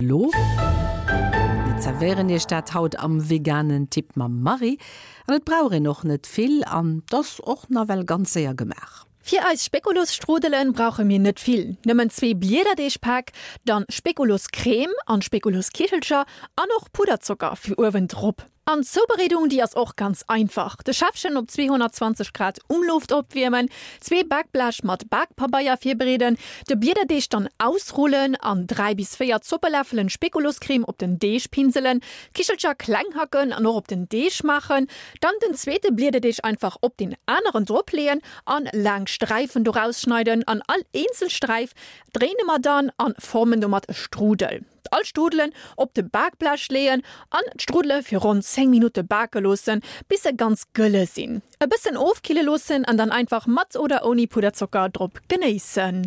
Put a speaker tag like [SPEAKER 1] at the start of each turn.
[SPEAKER 1] elo. Mir zerwéieren iech dat haut am veganen Tipp mam Marie. An et brauch een och net vill an 't ass och nawell ganz séier gemaach.
[SPEAKER 2] Fir eis Spekulosstrudelen brauche mir net vill, nëmmen zwee Bliederdeegpäck, dann Spekuloscrème an Spekuloskichelcher an och Pudderzocker fir uewen drop. An d'Zoubereedung, déi ass och ganz einfach, De Schäffchen op 220 Grad Umluft opwiermen, zwee Bakblech mat Bakpabeier virbereeden, de Bliederdeeg dann ausrullen an 3 bis 4 Zoppeläffelen Spekuloscrème op den Deeg pinselen, d'Kichelcher kleng hacken an och op den Deeg maachen, dann den zweete Bliederdeeg einfach op deen aneren drop leeën an laang Sträifen doraus schneiden an all eenzel Sträif dréine mer dann an formen domat e Strudel. All Strudelen op de Bakblech leeën an d'Strudele fir ronn 10 Minutte bake loossen, bis se ganz gëlle sinn. E bëssen ofkille loossen an dann einfach mat oder ouni Pudderzocker drop genéissen.